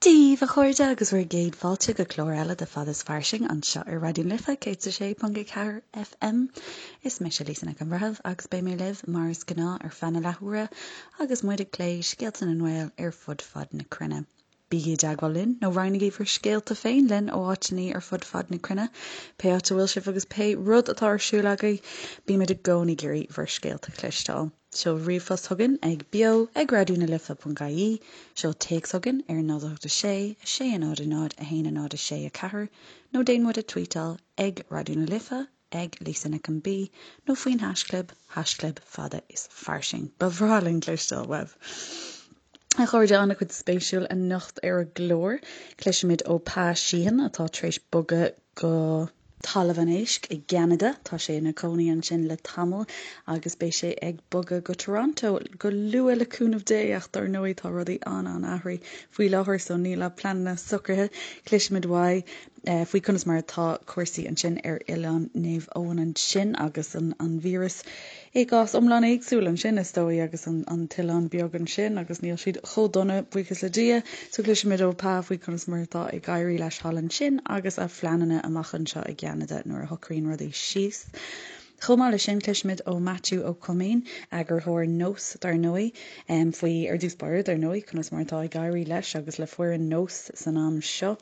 Dia daoibh, a chairde, agus bhur gcéad fáilte go clár eile de Fada is Fairsing anseo ar Raidió na Life 106.4 FM. Is mise Lisa Nic an Bhreithimh agus beidh mé libh mar is gnáth ar feadh na leathuaire agus muid ag plé scéalta na nGael ar fud fad na cruinne. Bígí i dteagmháil linn nó roinnigí bhur scéalta féin linn ó áiteanna ar fud fad na cruinne, pé áit a bhfuil sibh agus pé rud atá ar siúl agaibh, bímid i gcónaí ag iarraidh bhur scéalta a chloisteáil. Seol ríomhphost chugainn ag beo ag raidió na life ponc ie, seol téacs chugainn ar 0 8 6 6 0 0 1 0 6 4 nó déan muid a tweetáil ag Raidió na Life, ag Lisa Nic an B nó faoin haischlib, haischlib fada is fairsing. Ba bhreá linn cloisteáil uaibh! A chairde, an-chuid spéisiúil anocht ar an gclár. Cloisfimid ó Pa Sheehan atá tar éis bogadh go. Talamh an Éisc i gCeanada. Tá sé ina chónaí ansin le tamall agus beidh sé ag bogadh go Toronto go luath le cúnamh Dé ach dar ndóigh tá rudaí an-an-athraithe faoi láthair so níl a pleananna socraithe. Cloisfimid uaidh faoi conas mar atá cúrsaí ansin ar Oileán Naomh Eoin ansin agus an an víreas I gcás iomlán éagsúil ansin, is dóigh, agus an t-oileán beag ansin agus níl siad chomh dona, buíochas le Dia. So cloisfimid ó Pa faoi conas mar atá ag éirí leis thall ansin agus a phleananna amach anseo i gCeanada nuair a shocraíonn rudaí síos. Chomh maith leis sin, cloisfimid ó Maitiú Ó Coimín, eagarthóir Nós, dar ndóigh, faoi, ar dtús báire, dar ndóigh, conas mar atá ag éirí leis agus le foireann Nós san am seo.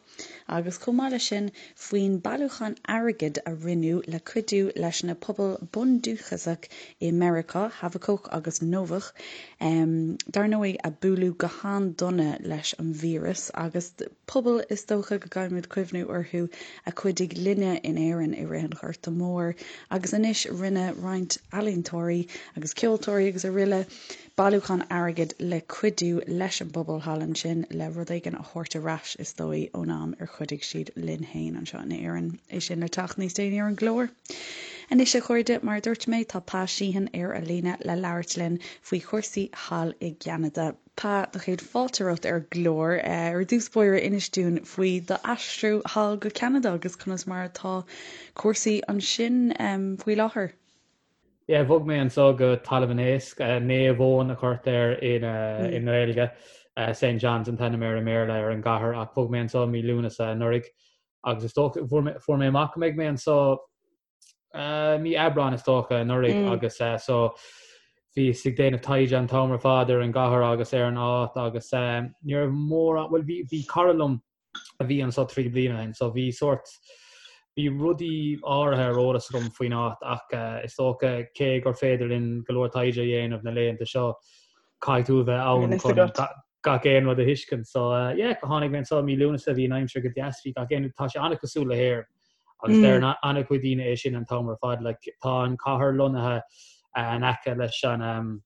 agus chomh maith leis sin faoin bailiúchán airgid a rinneadh le cuidiú leis na pobail bundúchasach i Meiriceá, Havakuk agus Novach, dar ndóigh, a buaileadh go han-dona leis an víreas agus pobail is dócha go gcaithfimid cuimhniú orthu a chuidigh linne in Éirinn i rith an Ghorta Mhóir agus anois rinne roinnt ealaíontóirí agus ceoltóirí agus araile bailiúchán airgid le cuidiú leis an bpobal thall ansin le rud éigin a thabhairt ar ais, is dóigh, ón am ar chuidigh siad linn féin anseo in Éirinn. É sin le teacht níos déanaí ar an gclár. Anois, a chairde, mar a dúirt mé, tá Pa Sheehan ar an líne le labhairt linn faoi chúrsaí thall i gCeanada. Pa, do chéad fáilte romhat ar an gclár. Ar dtús báire, inis dúinn faoi d'aistriú thall go Ceanada agus conas mar atá cúrsaí ansin faoi láthair. Yeah, bhog mé anso go Talamh an Éisc, Naomh Eoin a chuirtear air i nGaeilge, St John's an t-ainm air i mBéarla ar an gcathair, ach bhog mé anso mí Lúnasa anuraidh agus is dócha, fuair mé amach go mbeidh mé anso mí Aibreáin is dócha anuraidh agus so bhíos ag déanamh taighde an t-am ar fad ar an gcathair agus ar an áit agus ní raibh mórán, bhuel bhí cara liom a bhí anso 3 bliana ó shin so bhí sórt, bhí rudaí áirithe ar eolas agam faoin áit ach is dócha cé gur féidir linn go leor taighde a dhéanamh na laethanta seo caithfidh tú a bheith ann chun gach aon rud a thuiscint. So yeah, tháinig mé anso mí Lúnasa, bhí an aimsir go deas, bhí gach aon, tá sé an-chosúil le hÉirinn agus deir an-chuid daoine é sin an t-am ar fad, like tá an cathair lonnaithe in aice leis an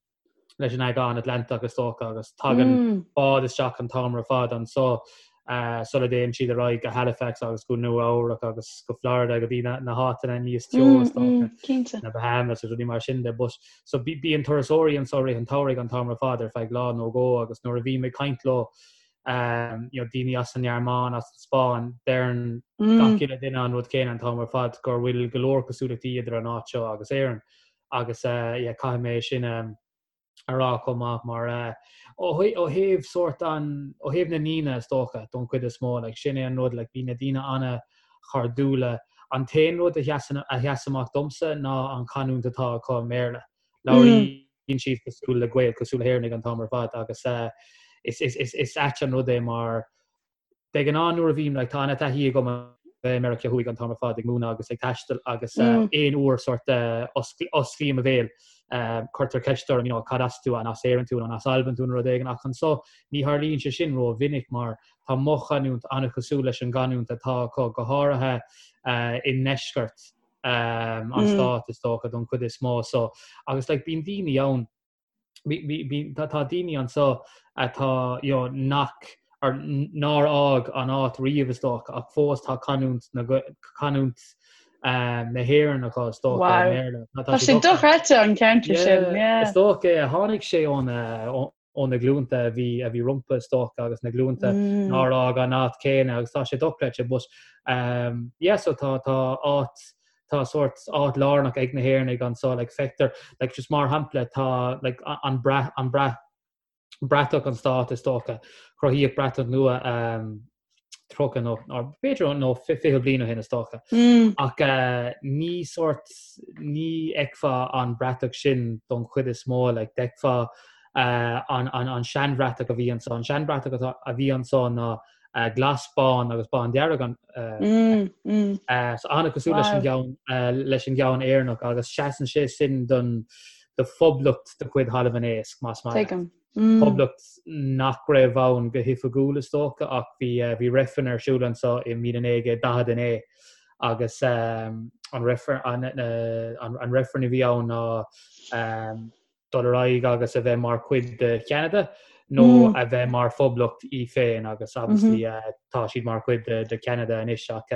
leis an Aigéan Atlantach is dócha agus tagann báid isteach an t-am ar fad anso sula dtéann siad ar aghaidh go Halifax agus go Nua Eabhrac agus go Florida go dtí na háiteanna níos teo is dócha, na Bahamas agus rudaí mar sin de. But so bíonn turasóirí anso i rith an tsamhraidh an t-am ar fad ar feadh lá nó dhó agus nuair a bhím ag caint leo you know, daoine as an nGearmáin, as an Spáinn, deireann gach uile duine an rud céanna an t-am ar fad gur bhfuil go leor cosúlachtaí idir an áit seo agus Éirinn. Agus yeah caithfidh mé sin a rá chomh maith mar ó thaobh sórt an, ó thaobh na ndaoine is dócha don chuid is mó like sin é an rud like bhí na daoine an-chairdiúla. An t-aon rud a sheasann, a sheas amach domsa ná an chanúint atá acu i mBéarla. Labhraíonn siad cosúil le Gaeil, cosúil le hÉireannaigh an t-am ar fad agus is, is, is, is ait an rud é mar De ghnáth nuair a bhím, like, tá an-taithí agam a bheith i Meiriceá Thuaidh an t-am ar fad ag múineadh agus ag taisteal agus aon uair sórt osclaím mo bhéal, cuirtear ceist orm, you know, cad as tú, an as Éirinn tú nó an as Albain tú nó rud éigin ach anso ní tharlaíonn sé sin ró-mhinic mar tá mo chanúint an-chosúil leis an gcanúint atá acu, go háirithe i ndeisceart an stáit is dócha don chuid is mó so agus like bíonn daoine ann Tá daoine anso atá you know nach or nár fhág an áit riamh is dócha ach fós tá canúint na canúint na hÉireann acu is dócha i mBéarla. Tá sé dochreidte an ceantar sin, yeah. Is dócha é. Tháinig sé ó ó na glúnta a bhí a bhí rompu is dócha agus na glúnta nár fhág an áit céanna agus tá sé dochreidte but yeah so tá tá áit tá sórt áit lárnach ag na hÉireannaigh anso, like feictear, like just mar shampla tá like an brat, an brat. bratach an stát is dócha. Cruthaíodh bratach nua 30 nó b'fhéidir nó 20 bliain ó shin is dócha. Ach ní sórt ní fheicfeá an bratach sin don chuid is mó, like d'fheicfeá an an seanbhratach a bhí anso. An seanbhratach a bhí anso ná glas, bán agus bándearg an so an-chosúil leis an gceann leis an gceann Éireannach agus seasann sé sin don do phoblacht de chuid Thalamh an Éisc, más maith leat. Tuigim. Poblacht nach raibh ann go hoifigiúil is dócha ach bhí bhí reifreann ar siúl anso i 1949 agus an reifreann an reifreann a bhí ann ná dul ar aghaidh agus a bheith mar chuid de Cheanada nó a bheith mar phoblacht í féin agus obviously tá siad mar chuid de Cheanada anois ach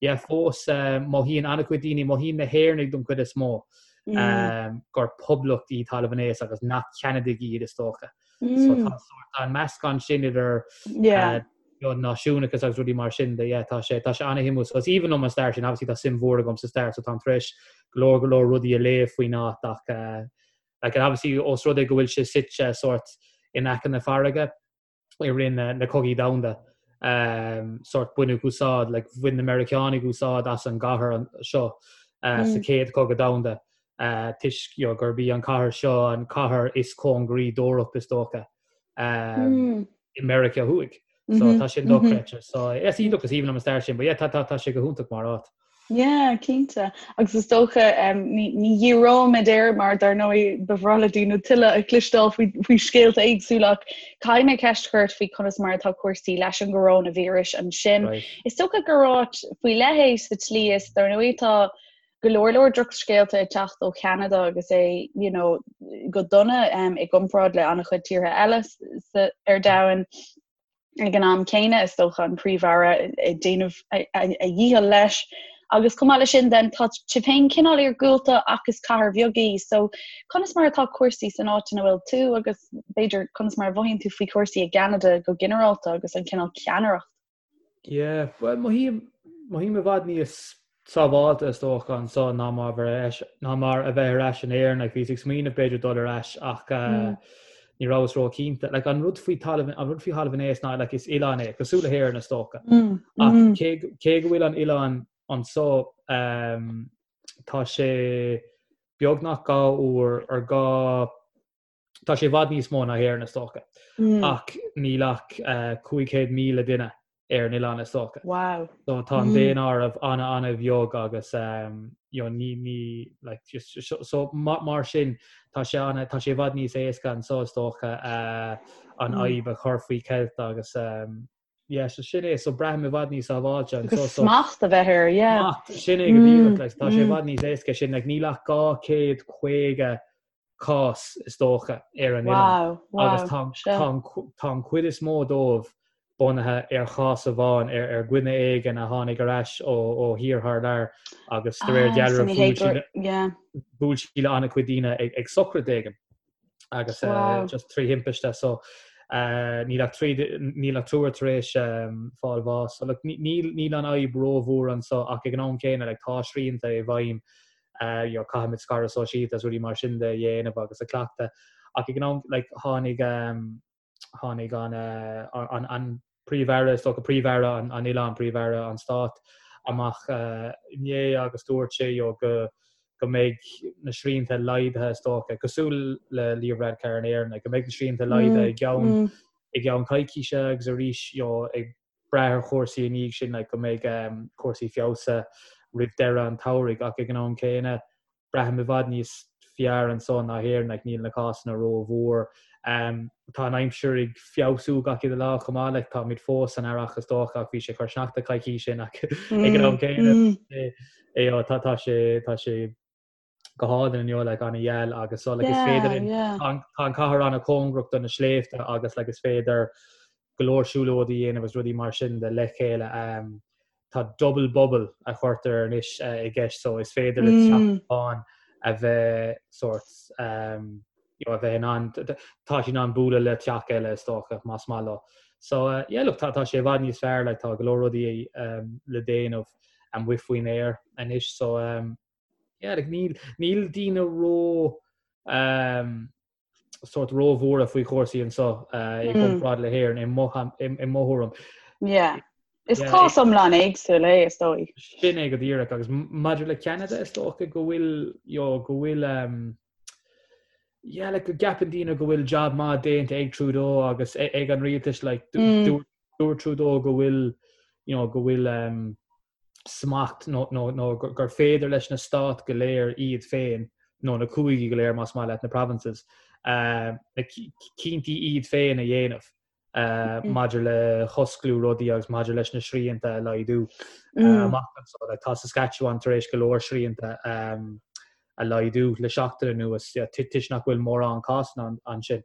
yeah fós mothaíonn an-chuid daoine, mothaíonn na hÉireannaigh don chuid is mó gur poblacht í Talamh an Éisc agus nach Ceanadaigh iad is dócha. So tá sórt an meascán sin idir náisiúnachas agus rudaí mar sin de yeah tá sé tá sé an-shuimiúil. So is aoibhinn liom an stair sin, obviously tá suim mhór agam sa stair so táim tar éis go leor go leor rudaí a léamh faoin áit ach uh, like, and obviously os rud é go bhfuil sé suite sórt in aice na farraige i rith na, na cogaí domhanda um, sórt baineadh úsáid like, bhain na Meiriceánaigh úsáid as an gcathair an, seo uh, mm. sa chéad chogadh domhanda uh, toisc you know, gurb í an cathair seo an cathair is cóngaraí d'Eoraip is dócha. Um, mm. i Meiriceá Thuaidh. So tá sin dochreidte. So is iontach is aoibhinn liom an stair sin, but yeah, tá tá tá sé go hiontach mar áit. Yeah, cinnte. Agus is dócha um, ní, ní dhíreoimid air mar dar ndóigh ba bhreá le daoine tuilleadh a chloisteáil faoi, faoi scéalta éagsúla ach caithfidh mé ceist a chur ort faoi conas mar atá cúrsaí leis an gcoróinvíreas ansin. Right. Is dócha gur áit faoi leith é sa tslí is dar ndóigh tá go leor leor drochscéalta ag teacht ó Cheanada agus é you know, go dona um, i gcomparáid le an-chuid tíortha eile sa, ar domhan. Ag an am céanna is dócha an príomh-aire ag déanamh a, a, a dhícheall leis. Agus chomh maith leis sin then tá sibh féin cineál iargúlta ach is cathair bheag í. So conas mar atá cúrsaí san áit ina bhfuil tú agus b'fhéidir conas mar a mhothaíonn tú faoi chúrsaí i gCeanada go ginearálta agus an cineál ceannaireacht Yeah, bhuel mothaím, mothaím i bhfad níos sábháilte is dócha anso ná mar bheith ná mar a bheith ar ais in Éirinn. Like, bhíos ag smaoineamh b'fhéidir dul ar ais ach mm. ní rabhas ró-chinnte. Like, an rud faoi talamh an rud faoi Thalamh an Éisc ná like, is oileán é, cosúil le hÉirinn is dócha. Mm. Ach mm. cé, cé go bhfuil an oileán anso um, tá sé beagnach dhá uair ar dhá Tá sé i bhfad níos mó ná hÉirinn is dócha. Ach níl ach 500,000 duine ar an oileán is dócha. Wow. So tá an daonáireamh an-an-bheag agus you know, ní ní like just so mar sin tá sé an tá sé i bhfad níos éasca anso is dócha an fhadhb a chur faoi cheilt agus yeah, so sin é so braithim i bhfad níos sábháilte anso so smacht a bheith air, yeah. Smacht, sin é go díreach, like, tá sé i bhfad níos éasca sin like níl ach 250 cás, is dócha, ar an oileán. Agus tá an chuid is mó dóibh bunaithe ar chás amháin, ar dhuine éigin a tháinig ar ais ó thír thar lear agus de réir dealraimh bhuail sí le an-chuid daoine ag sochraid éigin agus just trí thimpiste. So níl ach níl ach triúr tar éis fáil bháis. So níl an fhadhb rómhór anso ach ag an am céanna tá srianta i bhfeidhm you know, caithfimid scaradh sóisialta agus rudaí mar sin de a dhéanamh agus a chleachtadh. Ach ag an am, like, tháinig, um, tháinig an, uh, an, an príomh-aire, is dócha príomh-aire an, an oileáin, príomh-aire an stáit amach uh, inné agus dúirt sé you know, go go mbeidh na srianta laghdaithe is dócha, cosúil le Leo Varadkar in Éirinn, like, go mbeidh na srianta laghdaithe i gceann mm. i gceann coicíse agus arís you know, ag brath ar chúrsaí i ndiaidh sin like go mbeidh cúrsaí feabhsaithe roimh deireadh an tsamhraidh ach ag an am céanna braithim i bhfad níos fearr anso ná hÉirinn like níl na cásanna rómhór. Um, tá an aimsir ag feabhsú gach uile lá chomh maith like táimid fós san earrach is dócha ach bhí sé ag cur sneachta coicís ó shin ach ag an am céanna mm. é, tá tá sé tá sé go hálainn inniu like an-gheal agus so like is féidir linn tá an cathair an-chóngarach do na sléibhte agus like is féidir go leor siúlóidí a dhéanamh agus rudaí mar sin de le chéile. Um, tá double bubble a chuirtear anois uh, i gceist so is féidir le teach mm. amháin a bheith sort um, you know, a bheith in ann tá siad in ann bualadh le teach eile is dócha más maith leo. So uh, yeah, look, tá, tá sé i bhfad níos fearr like, tá go leor rudaí um, le déanamh amuigh faoin aer anois so um, Yeah, like níl, níl daoine ró um, sórt róbhuartha faoi chúrsaí anseo i gcomparáid le hÉirinn i mo i mo thuairim. Yeah. Is cás iomlán éagsúil é is dóigh. Sin é go díreach agus maidir le Ceanada is dócha go bhfuil you know, go bhfuil um, yeah, like, go gceapann daoine go bhfuil job maith déanta ag Trudeau agus ag an rialtas like, mm. dúirt Trudeau go bhfuil you know, go bhfuil um, smacht nó, nó, nó gur féidir leis na stáit go léir iad féin nó na cúigí go léir más maith leat na provinces uh, na cinntí iad féin a dhéanamh. uh, maidir le hosclú rudaí agus maidir leis na srianta a laghdú uh, mm. amach anseo. Like, tá Saskatchewan tar éis go leor srianta um, a laghdú le seachtain anuas yeah, toisc nach bhfuil mórán cásanna ansin.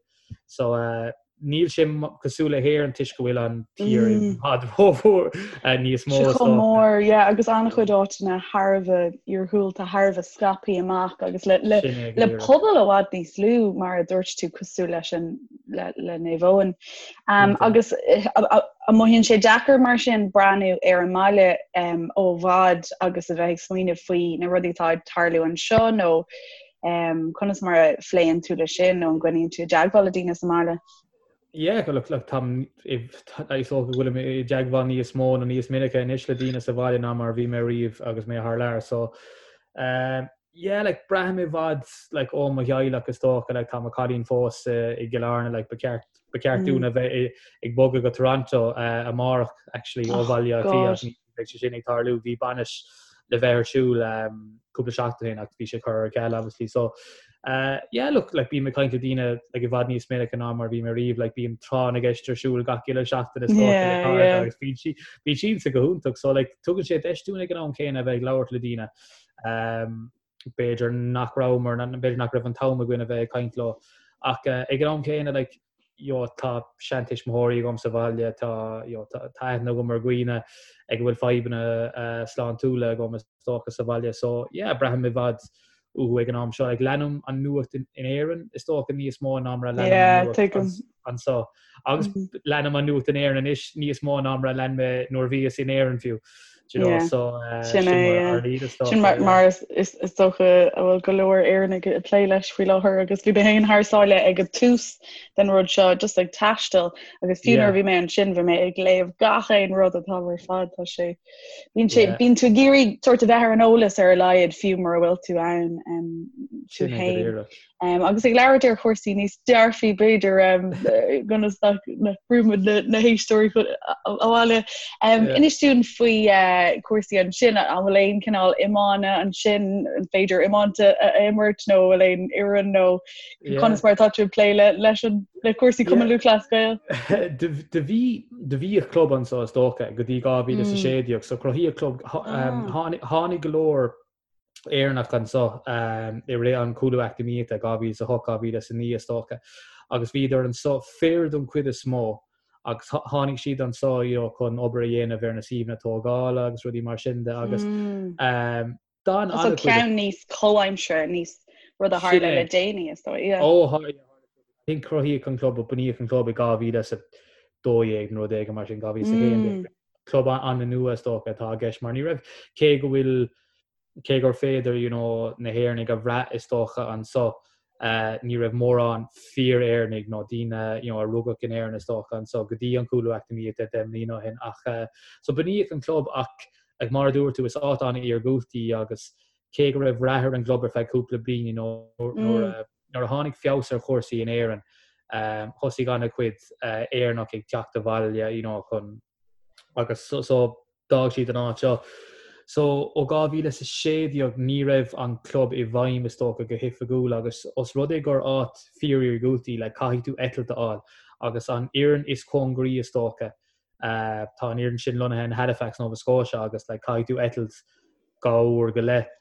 So uh, níl sé cosúil le hÉirinn toisc go bhfuil an tír i mm. bhfad rómhór uh, níos mó. Chomh mór, yeah, agus an-chuid áiteanna thar a bheith iargúlta thar a bheith scaipthe amach agus le, le, le pobal i bhfad níos lú mar a dúirt tú cosúil leis an le, le Naomh Eoin. Um, agus eh, an mothaíonn sé deacair mar sin breathnú ar an mbaile um, ó bhfad agus a bheith ag smaoineamh faoi na rudaí atá ag tarlú anseo nó um, conas mar a phléann tú le sin nó an gcoinníonn tú i dteagmháil le daoine sa mbaile? Yeah, look, look, táim is dócha go bhfuilim i dteagmháil níos mó nó níos minice anois le daoine sa bhaile ná mar bhí mé riamh agus mé thar lear. So, um, Yeah like braithim i bhfad like ó mo theaghlach is dócha like tá mo chailín fós i gCill Airne like ba cheart ba cheart dúinn a bheith ag bogadh go Toronto uh, amárach actually ó oh, Bhaile Átha Cliath ní bheidh sé sin ag tarlú bhí bainis le bheith ar siúl um, cúpla seachtain ó shin ach bhí sé curtha ar ceal obviously so uh, yeah look like bím ag caint le daoine like i bhfad níos minice ná mar bhí mé riamh like bíonn tráth na gceist ar siúl gach uile seachtain is dócha le cairde agus bíonn sí bíonn siadsan go hiontach so like tugann sé deis dúinn ag an am céanna a bheith ag labhairt le daoine B'fhéidir nach rabhamar, b'fhéidir nach raibh an t-am againn a bheith ag caint leo. Ach ag an am céanna, like, you know, tá seantuismitheoirí agam sa bhaile, tá, you know, tá aithne agam ar dhaoine ag a bhfuil fadhbanna sláintiúla agam is dócha sa bhaile. So, yeah, braithim i bhfad uathu ag an am seo. Like, leanaim an nuacht in Éirinn, is dócha, níos mó ná mar a leanaim an nuacht anseo. Agus leanaim an nuacht in Éirinn anois níos mó ná mar a lean mé nuair a bhíos in Éirinn fiú. Do you know, so sin mar Sin mar is dócha a bhfuil go leor Éireannaigh ag plé leis faoi láthair agus bhí mé féin thar sáile ag an tús den rud seo just ag taisteal agus fiú nuair a bhí mé ansin bhí mé ag léamh gach aon rud atá ar fad tá sé bíonn sé bíonn tú ag iarraidh sort a bheith ar an eolas ar a laghad fiú mura bhfuil tú ann tú féin. Um, agus ag labhairt ar chúrsaí níos dearfaí b'fhéidir um, ionas nach mbrúimid na, na héisteoirí abhaile. Um, yeah. Inis dúinn faoi uh, cúrsaí ansin an bhfuil aon cineál iomána ansin an féidir iomáint a, a imirt nó bhfuil aon fhoireann nó yeah. conas mar atá tú ag plé le, leis an le cúrsaí Cumann yeah. Lúthchleas Gael? Do bhí do bhíodh club anseo is dócha go dtí 2016 mm. so cruthaíodh club um, ah. tháinig go leor Éireannach anseo i rith an chúlú eacnamaíochta, 2008, 2009 is dócha, agus bhíodar anseo, fir don chuid is mó, agus tháinig siad anseo you know chun obair a dhéanamh ar na suíomhanna tógála agus rudaí mar sin de agus d'fhan an-chuid. So ceann níos comhaimseartha, níos rud a tharla le déanaí is dóigh, yeah. Ó, tharla, I think cruthaíodh an club, bunaíodh an club i 2012 nó rud éigin mar sin, 2011. Club an-nua is dócha atá i gceist mar ní raibh, cé go bhfuil, cé gur féidir you know na hÉireannaigh a bhrath is dócha anseo, ní raibh mórán fíor-Éireannaigh nó daoine you know a rugadh in Éirinn is dócha anseo go dtí an cúlú eacnamaíochta 10 mbliana ó shin ach so bunaíodh an club ach like mar a dúirt tú is áit an-iargúlta í agus cé go raibh rath ar an gclub ar feadh cúpla bliain you know nuair a Nuair a tháinig feabhas ar chúrsaí in Éirinn, thosaigh an-chuid Éireannach ag teacht abhaile you know chun agus so d'fhág siad an áit seo. So ó 2016 ní raibh an club i bhfeidhm is dócha go hoifigiúil agus os rud é gur áit fíor-iargúlta í like caithfidh tú eitilt a fháil agus an fhoireann is cóngaraí is dócha tá an fhoireann sin lonnaithe in Halifax, Nova Scotia agus like caithfidh tú eitilt dhá uair go leith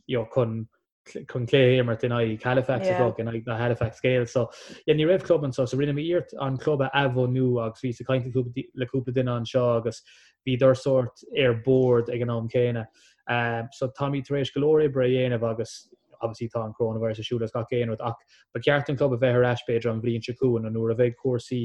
you know chun chun cluiche a imirt in aghaidh Halifax is dócha, in aghaidh na Halifax Gales. So yeah, ní raibh club anseo, so rinne mé iarracht an club a athbhunú agus bhíos ag caint le cúpla duine anseo agus bhíodar sórt ar bord ag an am céanna. Um, so táimid tar éis go leor oibre a dhéanamh agus obviously tá an coronavirus ar siúl agus gach aon rud ach ba cheart an club a bheith ar ais b'fhéidir an bhliain seo chugainn nó nuair a bheidh cúrsaí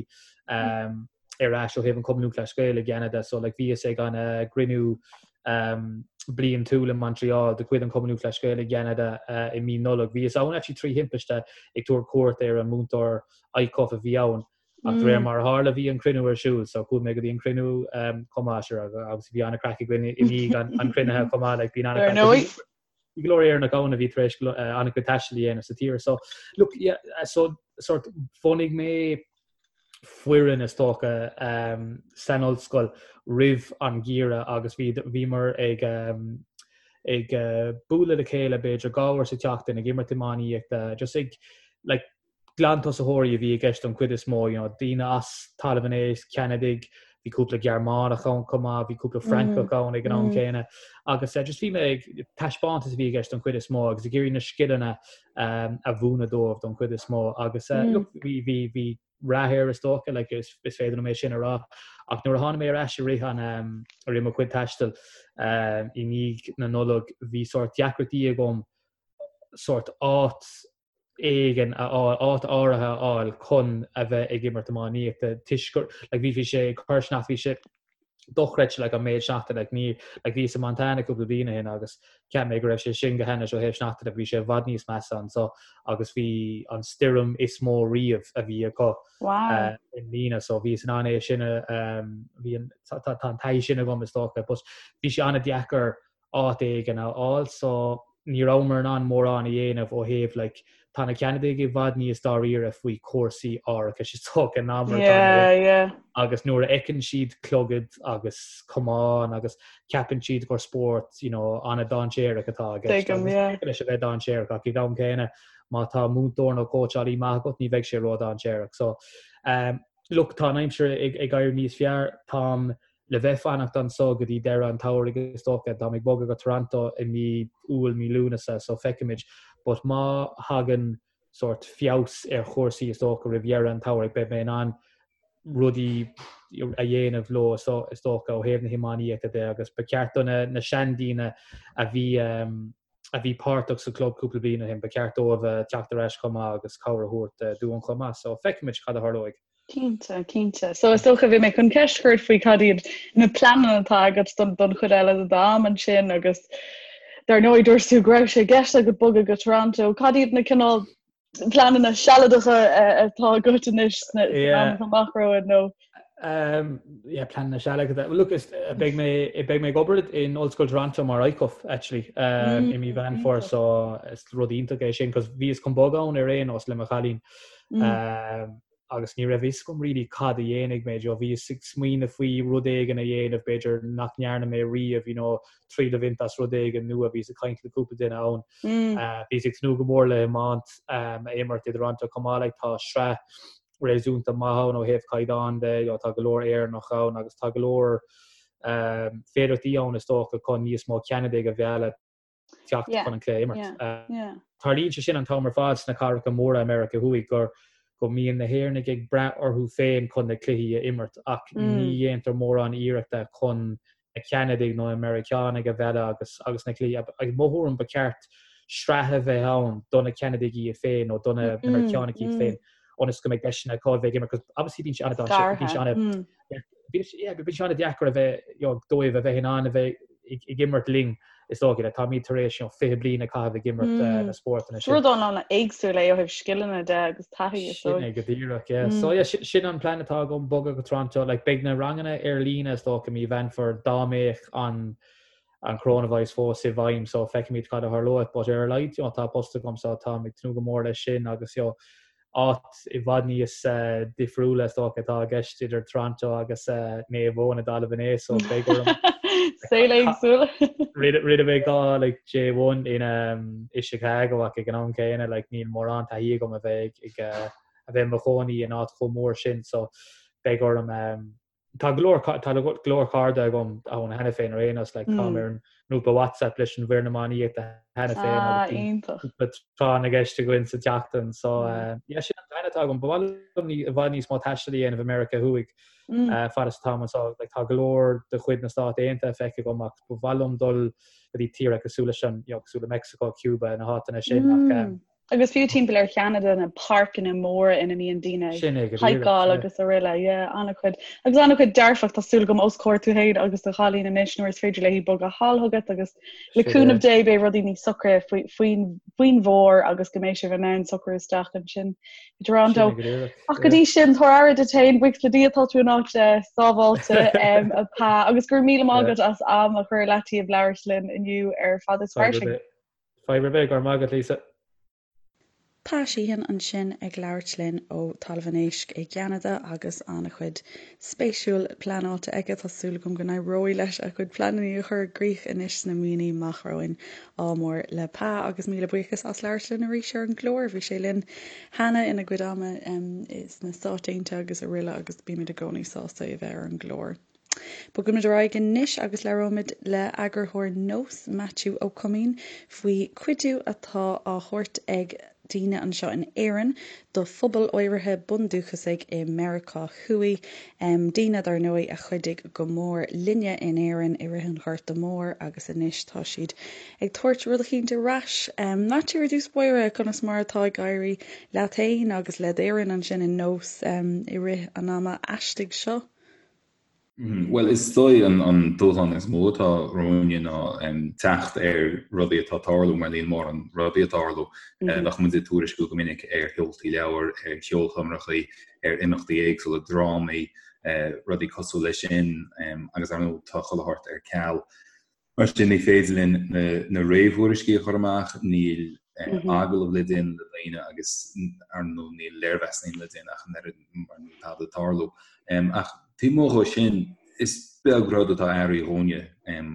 um, ar ais ó thaobh an Cumann Lúthchleas Gael i gCeanada so like bhíos ag an uh, gcruinniú um, bliantúil i Montreal de chuid an Chumann Lúthchleas Gael i gCeanada i mí Nollag. Bhíos ann actually trí thimpiste ag tabhairt cuairt ar an múinteoir ICUF a bhí ann ach de réir mar a tharla bhí an cruinniú ar siúl so chuaigh mé go dtí an cruinniú chomh maith sure agus bhí an-craic againn i ndiaidh an chruinnithe chomh maith like bíonn an-craic. Bhí go leor Éireannach ann a bhí tar éis an-chuid taistil a dhéanamh sa tír. So look yeah so sort bhunaigh mé foireann is dócha san ollscoil roimh an gheimhreadh agus bhí bhíomar ag ag bualadh le chéile b'fhéidir 2 uair sa tseachtain ag imirt iománaíochta just ag like glantosaitheoirí a bhí i gceist don chuid is mó, you know, daoine as Talamh an Éisc, Ceanadaigh, bhí cúpla Gearmánach ann chomh maith, bhí cúpla Francach ann ag an am céanna agus just bhí mé ag taispeántas a bhí i gceist don chuid is mó agus ag iarraidh na scileanna a mhúineadh dóibh don chuid is mó agus look, bhí bhí bhí rath air is dócha, like, is is féidir liom é sin a rá. Ach nuair a tháinig mé ar ais i rith an i rith mo chuid taistil i ndiaidh na Nollag, bhí sórt deacrachtaí agam sórt áit éigin a fháil, áit áirithe a fháil chun a bheith ag imirt iománaíochta toisc gur, like, bhí, bhí sé ag cur sneachta, bhí sé dochreidte, like, an méid sneachta, like, ní, like, bhíos i Montana cúpla bliain ó shin agus cheap mé go raibh sé sin go hainnis ó thaobh sneachta de, bhí sé i bhfad níos measa anso agus bhí an stoirm is mó riamh a bhí acu Wow. i mbliana so bhíos in ann é sin a, bhí an, tá, tá an taithí sin agam is dócha, but bhí sé an-deacair áit éigin a fháil so ní rabhamar in ann mórán a dhéanamh ó thaobh like tá na Ceanadaigh i bhfad níos dáiríre faoi chúrsaí árachais is dócha ná mar atá na Yeah, yeah. agus nuair a fheiceann siad clogad agus camán agus ceapann siad gur spórt you know an-dainséarach atá i gceist Tuigim, agus yeah. féidir leis a bheith dainséarach ach ag an am céanna má tá múinteoir nó cóitseálaí maith agat ní bheidh sé ródhainséarach so um, look tá an aimsir ag, ag éirí níos fearr táim le bheith fanacht anso go dtí deireadh an tsamhraidh is dócha. Táim ag bogadh go Toronto i mí Iúil, mí Lúnasa so feicfimid. But má thagann sórt feabhas ar chúrsaí is dócha roimh dheireadh an tsamhraidh beidh mé in ann rudaí a dhéanamh leo is dócha ó thaobh na hiománaíochta de agus ba cheart do na na seandaoine a bhí a bhí páirteach sa chlub cúpla bliain ó shin, ba cheart dóibh teacht ar ais chomh maith agus cabhair a thabhairt dúinn chomh maith. So feicfimid cad a tharlóidh. Cinnte, cinnte. So is dócha bhí mé chun ceist a chur ort faoi cad iad na pleananna atá agat don don chuid eile de d'am ansin agus dar ndóigh dúirt tú go raibh sé i gceist agat bogadh go Toronto. Cad iad na cineál pleananna sealadacha atá agat anois sna Yeah. amach amach romhainn nó Um, yeah, pleananna sealadacha. Well, look, is, eh, beidh mé beidh mé ag obair in Ollscoil Toronto mar ICUF actually um, i mí Mheán Fómhair so is rud iontach é sin cos bhíos chun bogadh ann ar aon nós le mo chailín. Um, agus ní raibh fhios agam really cad a dhéanfaidh mé, you know, bhíos ag smaoineamh faoi rud éigin a dhéanamh b'fhéidir nach ndearna mé riamh, you know, triail a bhaint as rud éigin nua, bhíos ag caint le cúpla duine ann. Uh, bhíos ag tnúth go mór le hiomáint um, a imirt i dToronto chomh maith, like, tá sraith réasúnta maith ann ó thaobh caighdeán de, you know, tá go leor Éireannach ann agus tá go leor um, féidearthachtaí ann is dócha chun níos mó Ceanadaigh a mhealladh teacht chun an cluiche a imirt. Tarlaíonn sé sin an t-am ar fad sna cathracha móra i Meiriceá Thuaidh gur go mbíonn na hÉireannaigh ag brath orthu féin chun na cluichí a imirt ach ní dhéantar mórán iarrachta chun na Ceanadaigh nó na Meiriceánaigh a mhealladh agus agus na cluichí i mo thuairim ba cheart sraith a bheith ann do na Ceanadaigh iad féin nó do na Meiriceánaigh iad féin ionas go mbeidh deiseanna acu a bheith ag imirt cos obviously bíonn sé an-dainséarach bíonn sé an Bíonn sé an-deacair a bheith, you know, dóibh a bheith in ann a bheith ag imirt linn, is dócha, like, táimid tar éis, you know, 20 bliain a chaitheamh ag imirt na spórtanna sin. Rud an-éagsúil é ó thaobh scileanna de agus taithí, is dóigh. Sin é go díreach, yeah. So, yeah, sin an plean atá agam, bogadh go Toronto. Like, beidh na ranganna ar líne, is dócha, mí Mheán Fómhair, dá mbeadh an an coronavirus fós i bhfeidhm, so feicfimid cad a tharlóidh. But ar a laghad, you know, tá post agam, so táim ag tnúth go mór leis sin agus, you know, áit i bhfad níos difriúla is dócha atá i gceist idir Toronto agus Naomh Eoin i dTalamh an Éisc so beidh orm Saol éagsúil. Rinne mé 2 like J1 in i Chicago ach ag an am céanna like níl mórán taithí agam a bheith ag a bheith i mo chónaí in áit chomh mór sin so beidh orm Tá go leor tá go leor cairde agam ann cheana féin ar aon nós, like táim ar an ngrúpa WhatsApp leis an bhfoireann iománaíochta cheana féin Ah, iontach. cúpla tráth na gceist againn sa tseachtain so yeah sin an plean atá agam. Ba mhaith liom i bhfad níos mó taistil a dhéanamh i Meiriceá Thuaidh fad is atáim anseo. Like tá go leor de chuid na Stát Aontaithe feicthe agam ach ba mhaith liom dul go dtí tíortha cosúil leis an, you know, cosúil le Mexico, Cuba, na háiteanna sin ach. Agus fiú timpeall ar Cheanada na páirceanna móra ina mbíonn daoine ag haiceáil agus araile, yeah, an-chuid. Agus an-chuid dearfach, tá súil agam os comhair tú féin agus do chailín anois nuair is féidir léi bogadh thall chugat agus le cúnamh Dé beidh rudaí níos socra faoin bhfómhar agus go mbeidh sibh in ann socrú isteach ansin i dToronto. Ach go dtí sin, tabhair aire duit féin, buíochas le Dia tá tú in áit sábháilte a Pa agus go raibh míle maith agat as am a chur ar leataobh labhairt linn inniu ar Fada is Fairsing. Fadhb ar bith, go raibh maith agat Lisa. Pa Sheehan ansin ag labhairt linn ó Talamh an Éisc i gCeanada agus an-chuid spéisiúil pleanáilte aige. Tá súil agam go n-éireoidh leis a chuid pleananna a chur i gcrích anois sna míonna amach romhainn. Ádh mór le Pa agus míle buíochas as labhairt linn arís ar an gclár. Bhí sé linn cheana ina gcuid ama sna Stáit Aontaithe agus araile agus bímid i gcónaí sásta é a bheith ar an gclár. Bogfaimid ar aghaidh anois agus labhróimid le eagarthóir Nós, Maitiú Ó Coimín, faoi chuidiú atá á thabhairt ag daoine anseo in Éirinn do phobal áirithe bundúchasaigh i Meiriceá Thuaidh, daoine, dar ndóigh, a chuidigh go mór linne in Éirinn i rith an Ghorta Mhóir agus anois tá siad ag tabhairt rud eicínt ar ais. Maitiú, ar dtús báire, conas mar atá ag éirí leat féin agus le d'fhoireann ansin in Nós i rith an ama aistigh seo? Bhuel, is dóigh an dúshlán is mó atá romhainne ná teacht ar rudaí atá ag tarlú, mar níl mórán rudaí ag tarlú. Bheadh muid ag tuairisciú go minic ar sheoltaí leabhar, ar cheolchoirmeacha, ar imeachtaí éagsúla, drámaí, rudaí cosúil leis sin, agus ar ndóigh tá chuile shórt ar ceal. Mar sin, ní féidir linn na réamhthuairiscí a chur amach, níl agallaimh le déanamh le daoine agus, ar ndóigh, níl léirmheasanna le déanamh ach an oiread mar níl tada ag tarlú. Ach taobh amuigh dhó sin, is beag rud atá athraithe dhúinne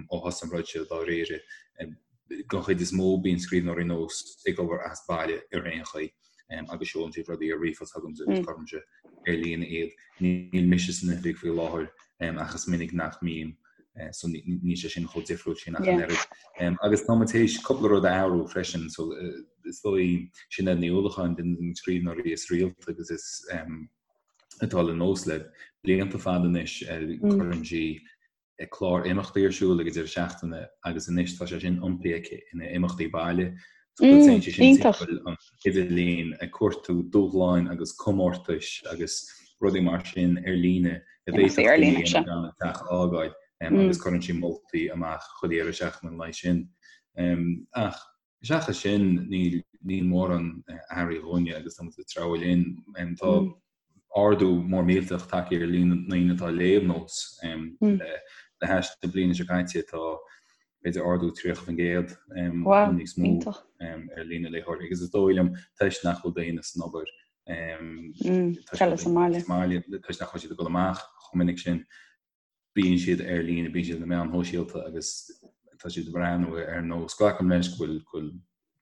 ó thosaigh an rud seo dáiríre. Don chuid is mó, bíonn scríbhneoirí Nós ag obair as baile ar aon chaoi. agus seolann siad rudaí ar ríomhphost chugamsa agus cuirimse ar líne iad. Níl mise san oifig faoi láthair ach is minic nach mbím so níl sé sin chomh difriúil sin ach an oiread. Agus tá muid théis cúpla rud a athrú freisin so is dóigh Sinéad Ní Uallacháin duine de na scríbhneoirí is rialta agus is atá le Nós le blianta fada anois cuireann sí clár imeachtaí ar siúl ag an deireadh seachtaine agus anois tá sé sin iompaithe aici ina imeachtaí baile. So mm, téann sí sin timpeall an idirlíon ag cuartú dúshláin agus comórtais agus rudaí mar sin ar líne a bhféadfadh daoine a dhéanamh gan an teach a fhágáil mm. agus cuireann sí moltaí amach chuile dheireadh seachtaine an lae sin. Ach Seachas sin, níl níl mórán athraithe dhúinne agus tá muid ag treabhadh linn. Tá ardú mór millteach tagtha ar líon na ndaoine atá ag léamh Nós. Le hais na bliana seo caite tá b'fhéidir ardú 30% nó níos mó ar líon na léitheoirí agus is dóigh liom toisc nach bhfuil daoine san obair sa mbaile, toisc nach bhfuil siad ag dul amach chomh minic sin. bíonn siad ar líne, bíonn siad ar na meáin shóisialta agus tá siad ag breathnú ar Nós. Glacaim leis go bhfuil go bhfuil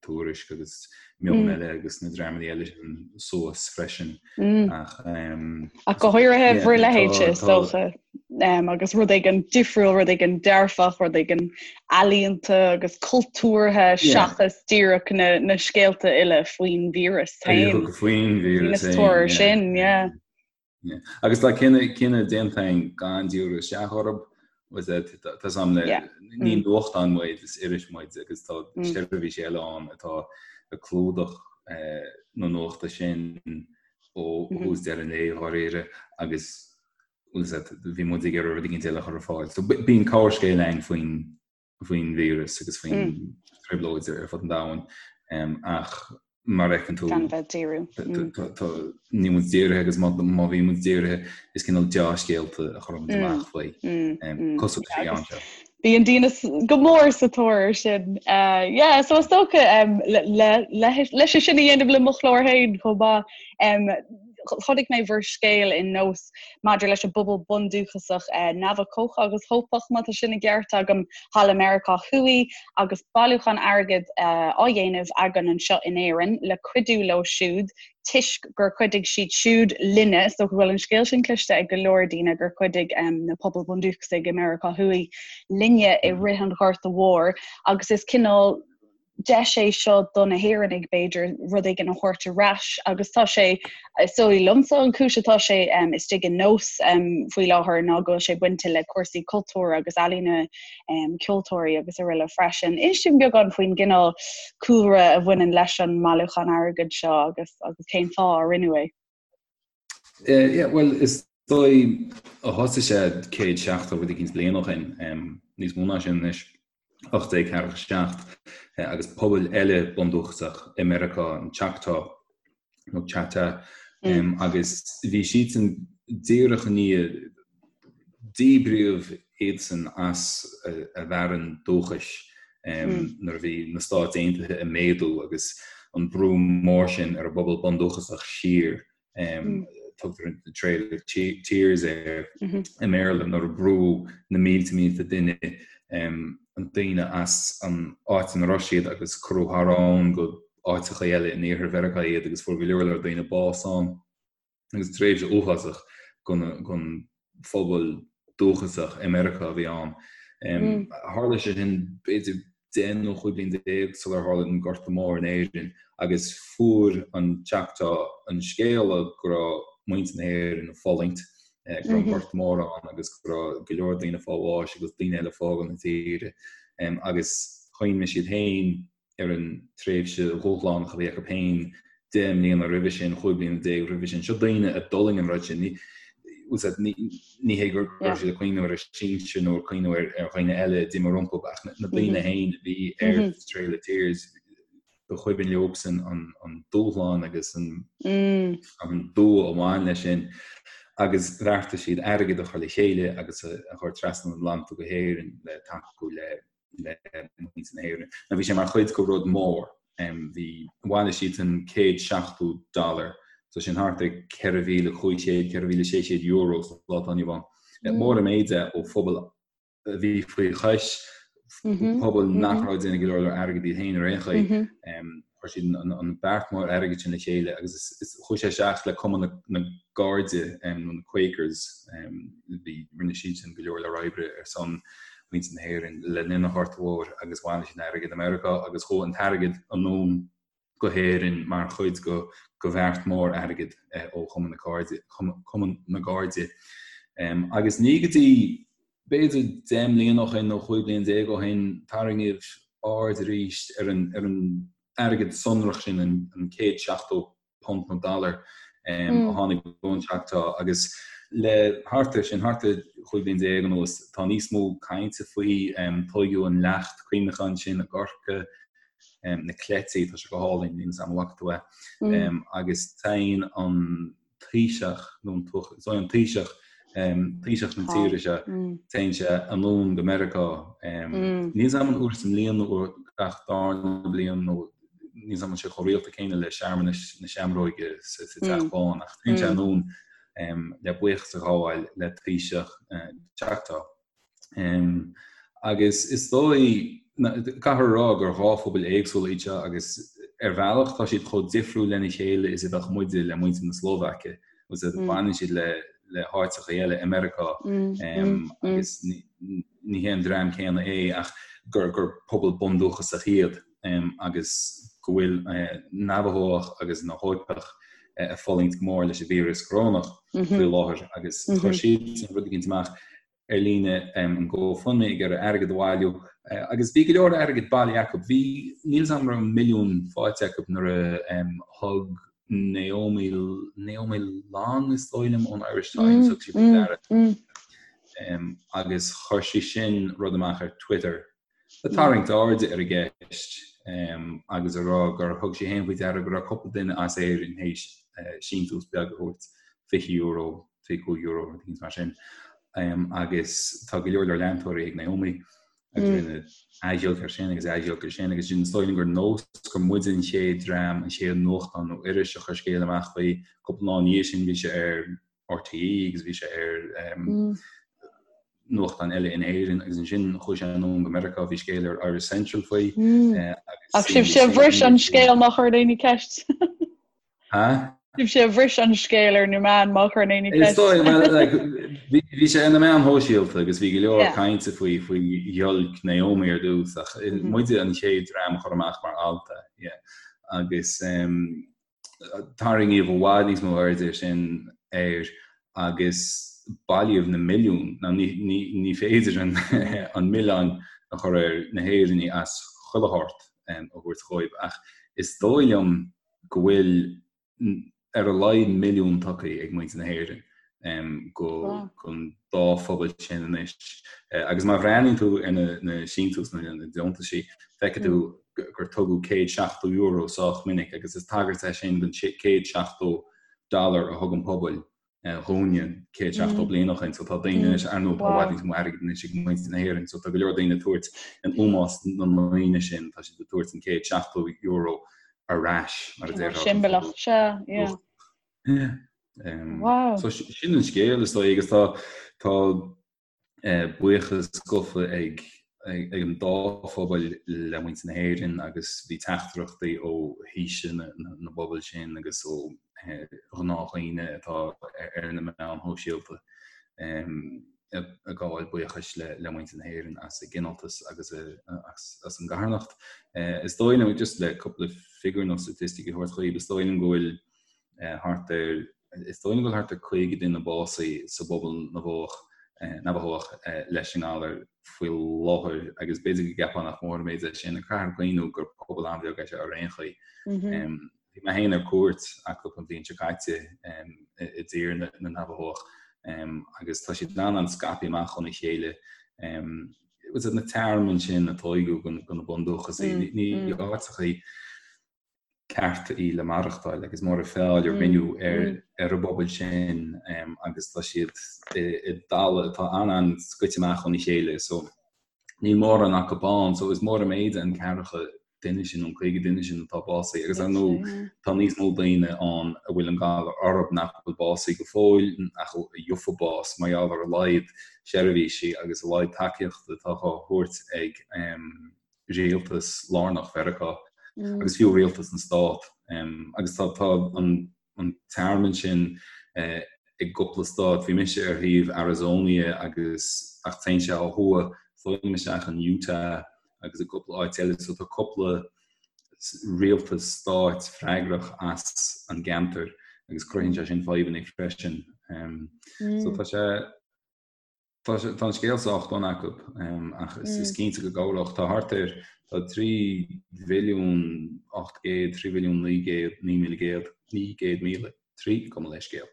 Tuairisc agus Meon mm. Eile agus na dreamanna eile sin suas freisin mm. ach um, ach go háirithe bhur leithéidse is dócha um, agus rud éigin difriúil rud éigin dearfach rud éigin ealaíonta agus cultúrtha seachas díreach na, na scéalta uile faoin víreas féin. Faoin víreas féin. sin, yeah. Agus tá cinneadh déanta againn gan díriú isteach orthu, tá sam le ní mm. nuachtán muid is iris muid agus tá mm. seirbhísí eile ann atá ag clúdach eh, na nuachta sin ó mm-hmm. thús deireadh an lae dháiríre agus bhí muid ag iarraidh rud éigin eile a chur ar fáil. So bíonn corrscéal againn faoin faoin víreas agus faoin mm. trioblóid ar fud an domhain ach mar a fheiceann tú gan bheith díriú. Níl muid dírithe agus má bhí muid dírithe is cineál deá-scéalta a chuireann muid mm. amach faoi mm. cosúil leis an seo. Bíonn daoine go mór sa tóir sin. Uh, yeah, so is dócha um, leis sin a dhéanamh le mo chlár féin chomh maith. Um, chonaic mé bhur scéal in Nós maidir leis an bpobal bundúchasach Navachóch agus Hópach, má tá sin i gceart agam, thall i Meiriceá Thuaidh, agus bailiúchán airgid á dhéanamh againn anseo in Éirinn le cuidiú leo siúd toisc gur chuidigh siad siúd linne. Is dócha go bhfuil an scéal sin cloiste ag go leor daoine gur chuidigh na pobail bhundúchasaigh i Meiriceá Thuaidh linne i rith an Ghorta Mhóir agus is cineál. deis é seo do na hÉireannaigh, b'fhéidir, rud éigin a thabhairt ar ais agus tá sé, is dóigh liomsa, an chúis atá sé istigh in Nós faoi láthair ná go bhfuil sé bainte le cúrsaí cultúir agus ealaíne, ceoltóirí agus araile freisin. Inis dúinn beagán faoin gcineál cúlra a bhaineann leis an mbailiúchán airgid seo agus agus cén fáth a rinneadh é. Yeah, bhuel, is dóigh a thosaigh sé 170 rud eicínt bliain ó shin, níos mó ná sin anois, 1847, agus pobail eile bundúchasach i Meiriceá, an Choctaw nó Chata, agus bhí siadsan díreach i ndiaidh díbríodh iadsan as a bhfearann dúchais nuair a bhí na Stáit Aontaithe ag méadú agus an brú mór sin ar an bpobal bundúchasach siar, tugtar an Trail of Tears air i mBéarla, nuair a brúdh na mílte mílte duine, daoine as an áit ina raibh siad agus cuireadh thar abhainn go áiteacha eile in iarthar Mheiriceá iad agus fuair go leor leor daoine bás ann. agus tréimhse uafásach don phobal dúchasach i Meiriceá a bhí ann. Tharla sé sin b'fhéidir 10 nó 15 bliain sular tharla an Gorta Mór in Éirinn agus fuair an Choctaw an scéala go raibh muintir na hÉireann ag fulaingt, go raibh an Gorta Mór ann agus go raibh go leor daoine ag fáil bháis agus daoine eile ag fágáil na tíre agus chuimhnigh siad féin ar an tréimhse dhúshlánach a bhí acu féin 10 mbliana roimhe sin, 15 bliana roimhe sin. Seo daoine a d'fhulaing an rud sin. Ní hé go raibh siad ag cuimhneamh ar a sinsir nó ag cuimhneamh ar dhaoine eile a d'imigh rompu ach na daoine féin a bhí ar Trail of Tears, ba chuimhin leobsan an dúshlán agus an dua a bhain leis sin agus bheartaigh siad airgead a chur le chéile agus a chur trasna an Atlantaigh go hÉirinn le tacú le le muintir na hÉireann. Now bhí sé mar chuid de rud mór. Bhí, bhailigh siadsan 170 dollar, so sin thart ar 4,500, 4,600 euro sa lá atá inniu ann. Mór an méid é ó phobal a bhí faoi chois, pobal nach raibh ag déanamh go leor leor airgid iad féin ar aon chaoi. Chuir siad an beart mór airgid sin le chéile agus chuaigh sé isteach le Cumann na gCairde, nó na Quakers, bhí, rinne siadsan go leor leor oibre ar son mhuintir na hÉireann le linn an Ghorta Mhóir agus bhailigh siad an airgead i Meiriceá agus chuaigh an t-airgead anonn go hÉirinn mar chuid de bheart mór airgid ó Chumann na Cairde, Cumann na gCairde. Agus ní go dtí b'fhéidir 10 mbliana ó shin nó 15 bliain ó shin, tarraingíodh aird arís ar an ar an airgead sonrach sin, an 170 punt nó dollar a tháinig ón Choctaw agus le thart ar sin, thart ar 15 bliain anuas, tá níos mó cainte faoi. Tóigeadh an leacht cuimhneacháin sin i gCorcaigh, na cleití, tá sé go hálainn, níl 'fhios a'm an bhfaca tú é, agus téann an Taoiseach, nó an Taoiseach, an Taoiseach, Taoiseach na tíre seo, téann sé anonn go Meiriceá. Níl 'fhios a'm an uair sa mbliain nó uair gach darna bliain nó níl 'fhios a'm an bhfuil sé chomh rialta céanna le searmanais na Seamróige sa Teach Bán ach téann sé anonn le buíochas a ghabháil le Taoiseach Choctaw. Agus is dóigh, caithfear a rá gur dhá phobal éagsúla iad seo agus ar bhealach tá siad chomh difriúil lena chéile is a bheadh muide le muintir na Slóvaice, agus baineann siad le le háiteacha eile i Meiriceá agus ní hé an dream céanna é ach gur gur pobal bundúchasach iad agus go bhfuil Navajó agus na hÓipeach ag fulaingt go mór leis an víreas corónach faoi láthair agus chuir siad rud eicínt amach ar líne an GoFundMe ag iarraidh airgead a bhailiú agus bhí go leor airgid bailithe acu. Bhí, níl 'fhios a'm an raibh milliún faighte acu nuair a thug Naomi, Naomi Long is dóigh liom ón Irish Times, thug sí faoi deara agus chuir sí sin rud amach ar Twitter ag tarraingt airde ar an gceist agus a rá gur thug sí féin faoi deara go raibh cúpla duine as Éirinn théis síntiús beag a thabhairt, €20, €25, rud éicint mar sin. Agus tá go leor leor leantóirí ag Naomi agus rinneadh athghiolc air sin agus athghiolc air sin agus sin is dóigh liom gur nós gur muide an chéad dream, an chéad nuachtán nó iris a chuir scéal amach faoi. Cúpla lá ina dhiaidh sin bhí sé ar RTÉ agus bhí sé ar nuachtán eile in Éirinn agus ansin chuaigh sé anonn go Meiriceá, bhí scéal ar Irish Central faoi. Ach sibhse a bhris an scéal má chuir éinne ceist. Ha? Sibhse a bhris an scéal ar na meáin má chuireann éinne ceist. Is dóigh, well, like, bhí sé ar na meáin shóisialta agus bhí go leor cainte faoi faoi ghiolc Naomi ar dtús ach muide an chéad dream a chuir amach mar alt é, yeah. Agus tarraingíodh i bhfad níos mó airde sin air agus bailíodh na milliúin, now ní, ní, ní féidir an, an milleán a chur ar na hÉireannaigh as chuile shórt a thabhairt dhóibh ach is dóigh liom go bhfuil ar a laghad milliún tugtha ag muintir na hÉireann go don dá phobal sin anois. Agus má bhreathnaíonn tú ar na síntiúis nó na deontaisí, feicfidh tú gur tugadh €170 sách minic agus is tagairt é sin don $170 a thug an pobal dhúinne 170 bliain ó shin. So tá daoine anois, ar ndóigh, tá i bhfad níos mó airgid anois ag muintir na hÉireann, so tá go leor daoine ag tabhairt in ómós na ndaoine sin, tá siad ag tabhairt an €170 ar ais, mar a déarfá. Siombalach, sea, yeah. Yeah. Um, so sin an scéal is dóigh agus tá tá buíochas gafa ag an dá phobal le muintir na hÉireann agus bhí teachtaireachtaí ó thaoisigh na bpobal sin agus ó ghnáthdhaoine atá ar na meáin shóisialta ag gabháil buíochais le muintir na hÉireann as a gcineáltas agus as an gcarthanacht. Is dóigh liom, just le cúpla figiúr nó statistic a thabhairt dhaoibh, is dóigh liom go bhfuil thart ar Is dóigh liom go bhfuil thart ar 50 duine básaithe sa bpobal Navajach, Navajach leis an ngalar faoi láthair agus b'fhéidir go gceapfá nach mór an méid é sin ach caithfear cuimhniú gur pobal an-bheag é seo ar aon chaoi. Bhí mé féin ar cuairt acu an bhliain seo caite i dtír na Navajach agus tá siad an-an-scaipthe amach óna chéile. Na tearmainn sin a tóigeadh do na bundúchasaigh, ní áiteachaí cearta í le maireachtáil agus mór an feall a rinneadh ar an bpobal sin agus tá siad i dtalamh atá an-an-scoite amach óna chéile so níl mórán acu ann so is mór an méid an ceathracha duine sin nó an 50 duine sin atá básaithe agus ar ndóigh tá níos mó daoine ann a bhfuil an galar orthu nach bhfuil básaithe go fóill ach a gheofaidh bás mar gheall ar a laghad seirbhísí agus a laghad tacaíochta atá á thabhairt ag rialtas lárnach Mheiriceá agus fiú rialtas na Stát. Agus tá tá an an tearmann sin i gcúpla stát. Bhí mise ar thaobh Arizona agus ach téann sé ó thuaidh fóill isteach in Utah agus i gcúpla áit eile. So tá cúpla rialtas stáit freagrach as an gceantar agus cruthaíonn sé sin fadhbanna freisin. So tá sé Tá an scéal sách dona acu ach is cinnte go gcabhródh. Tá thart ar, tá 3 mhilliún 800, 3 mhilliún 900, 9,100, 900,000, 3, gabh mo leithscéal,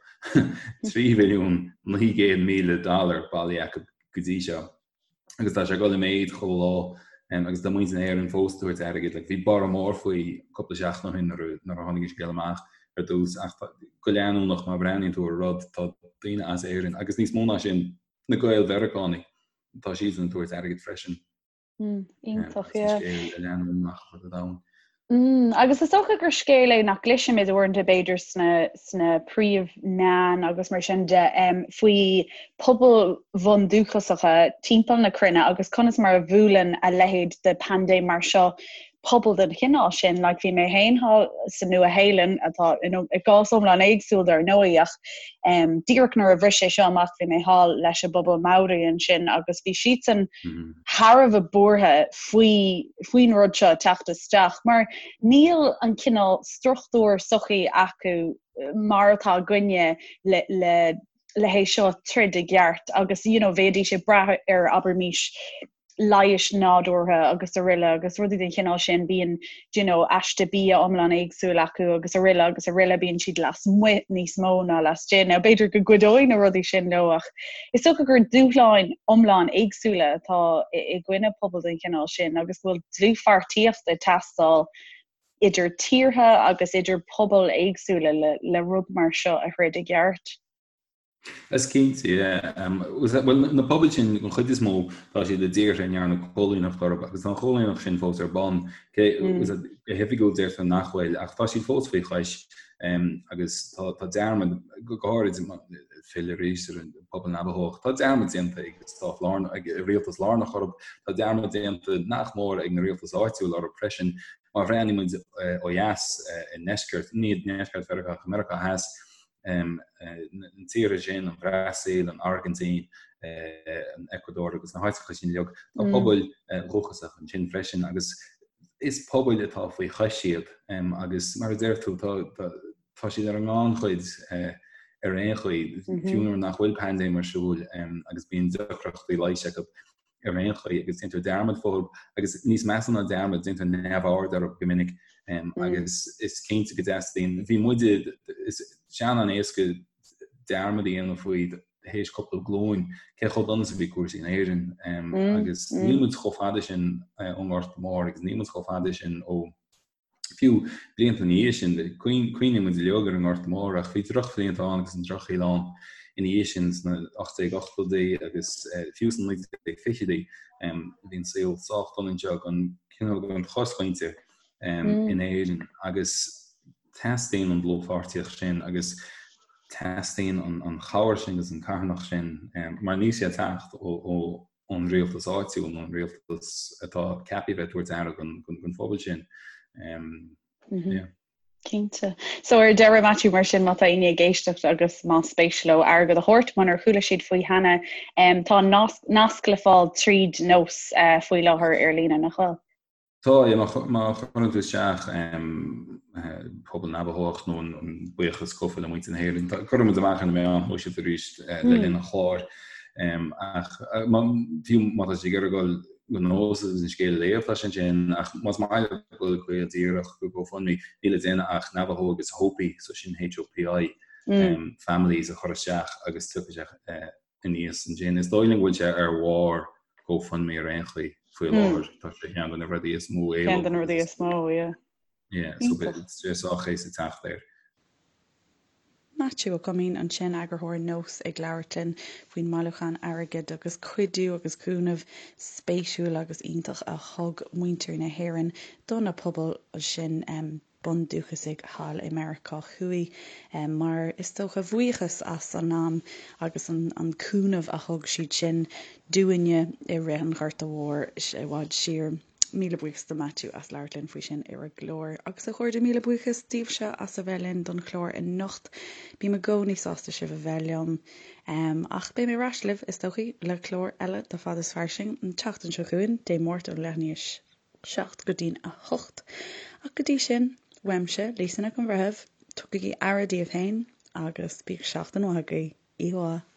3 mhilliún 900,000 dollar bailithe acu go dtí seo agus tá sé ag dul i méid chuile lá agus tá muintir na hÉireann fós ag tabhairt airgid. Like, bhí borradh mór faoi cúpla seachtain ó shin nuair a tháinig an scéal amach ar dtús ach go leanúnach má bhreathnaíonn tú ar rud tá daoine as Éirinn agus níos mó ná sin na Gael-Mheiriceánaigh tá siadsan ag tabhairt airgid freisin. Mm, iontach, yeah. Scéal leanúnach ar fud an domhain. Mm, agus is dócha gur scéal é nach gcloisimid uaireanta b'fhéidir sna, sna príomh-mheáin agus mar sin de um, faoi pobail bhundúchasacha timpeall na cruinne agus conas mar a bhuaileann a leithéid de paindéim mar seo pobal den chineál sin, like bhí mé féin thall sa Nua-Shéalainn, atá you know, i gcás iomlán éagsúil dar ndóigh, ach um, díreach nuair a bhris sé seo amach bhí mé thall leis an bpobal Maori ansin agus bhí siadsan mm -hmm. thar a bheith buartha faoi faoin rud seo teacht isteach, mar níl an cineál struchtúr sochaí acu mar atá againne le, le le hé seo troid i gceart agus you know, bheidís ag brath ar abraimis leighis nádúrtha agus araile agus rudaí den chineál sin, bíonn do you know aiste bia iomlán éagsúil acu agus araile agus araile, bíonn siad lasmuigh níos mó ná laistigh. Now b'fhéidir go gcuideoidh na rudaí sin leo ach is dócha gur dúshláin iomlán éagsúla atá i gcoinne pobal den chineál sin agus go bhfuil dlúthpháirtíocht ag teastáil idir tíortha agus idir pobail éagsúla le, le rud mar seo a throid i gceart. Is cinnte, yeah. Bhuel, na pobail sin, an chuid is mó, tá siad i dtíortha a ndearnadh coilíneacht orthu agus tá an choilíneacht sin fós ar bun. Cé, go hoifigiúil deirtear nach bhfuil, ach tá siad fós faoi chois agus tá dearmad, go háirid. filleadh arís ar an bpobal Navajó. Tá dearmad déanta ag an stát lárnach, ag an rialtas lárnach orthu, tá dearmad déanta nach mór ag na rialtais áitiúil orthu freisin. Má bhreathnaíonn muid ó dheas i ndeisceart, ní i ndeisceart Mheiriceá ach i Meiriceá Theas, na tíortha sin, an Bhrasaíl, an Airgintín, an Eacuadór agus na háiteacha sin uilig, tá pobail dhúchasacha ansin freisin agus is pobail atá faoi chois iad agus mar a deir tú, tá tá siad ar an ngannchuid ar aon chaoi, fiú nuair nach bhfuil paindéim ar siúl agus bíonn deacrachtaí leighis acu ar aon chaoi agus déantar dearmad fúthu agus níos measa ná dearmad, déantar neamhaird orthu go minic agus is cinnte go dteastaíonn, bhí muide, is sé an-éasca dearmad a dhéanamh faoi théis cúpla glúin cé chomh dona is a bhí cúrsaí in Éirinn agus níl muid chomh fada sin ón nGorta Mór agus níl muid chomh fada sin ó Fiú blianta ina dhiaidh sin, cuimhníonn muid uilig ar an nGorta Mór ach bhí drochbhlianta ann agus an drochshaol ann ina dhiaidh sin sna 1880idí agus fiú sna 1920idí. Bhí an saol sách dona anseo don cineál don chosmhuintir in Éirinn agus teastaíonn an dlúthpháirtíocht sin agus teastaíonn an chabhair sin agus an carthanacht sin mar níl sé ag teacht ó ón rialtas áitiúil nó an rialtas atá ceaptha a bheith ag tabhairt aire don phobal sin. Yeah. Cinnte. So ar deireadh Matthew mar sin má tá éinne ag éisteacht agus más spéis leo airgead a thabhairt munar chuala siad faoi cheana, tá nasc le fáil tríd Nós uh, faoi láthair ar líne nach bhfuil? Tá, yeah, má chuireann tú isteach pobal Navajó nó an buíochas cúfa le muintir na hÉireann, cuirfidh muid amach ar na meáin shóisialta arís le linn an chláir. Ach fiú má tá siad ag iarraidh dul go Nós agus an scéal a léamh, tá sé ansin, ach más maith leo dul go díreach go GoFundMe, níl le déanamh ach Navajo agus Hopi, so sin H-O-P-I, families a chur isteach agus tiocfaidh sé aníos ansin. Is dóigh liom go bhfuil sé ar bharr GoFundMe ar aon chaoi faoi láthair. Tá sé ceann de na rudaí is mó éileamh. Ceann de na rudaí is mó, yeah. Yeah, so beidh sé sách éasca teacht air. Maitiú Ó Coimín ansin, eagarthóir Nós ag labhairt linn faoin mbailiúchán airgid agus cuidiú agus cúnamh spéisiúil agus iontach a thug muintir na hÉireann do na pobail sin. bundúchasaigh thall i Meiriceá Thuaidh mar is dócha bhuíochas as an am agus an cúnamh a thug siad sin dúinne i rith an Ghorta Mhóir i bhfad siar. Míle buíochas do Matthew as labhairt linn faoi sin ar an gclár. Agus a chairde, míle buíochas daoibhse as a bheith linn don chlár anocht. Bím i gcónaí sásta sibh a bheith liom. Ach beidh mé ar ais libh, is dóichí, le clár eile de Fad is Fairsing an tseachtain seo chugainn, Dé Máirt ón leath i ndiaidh 7 go dtí'n 8. Ach go dtí sin, uaimse, Lisa Nic an Bhreithimh, tugaigí aire daoibh féin agus bíodh seachtain mhaith agaibh. Oíche mhaith.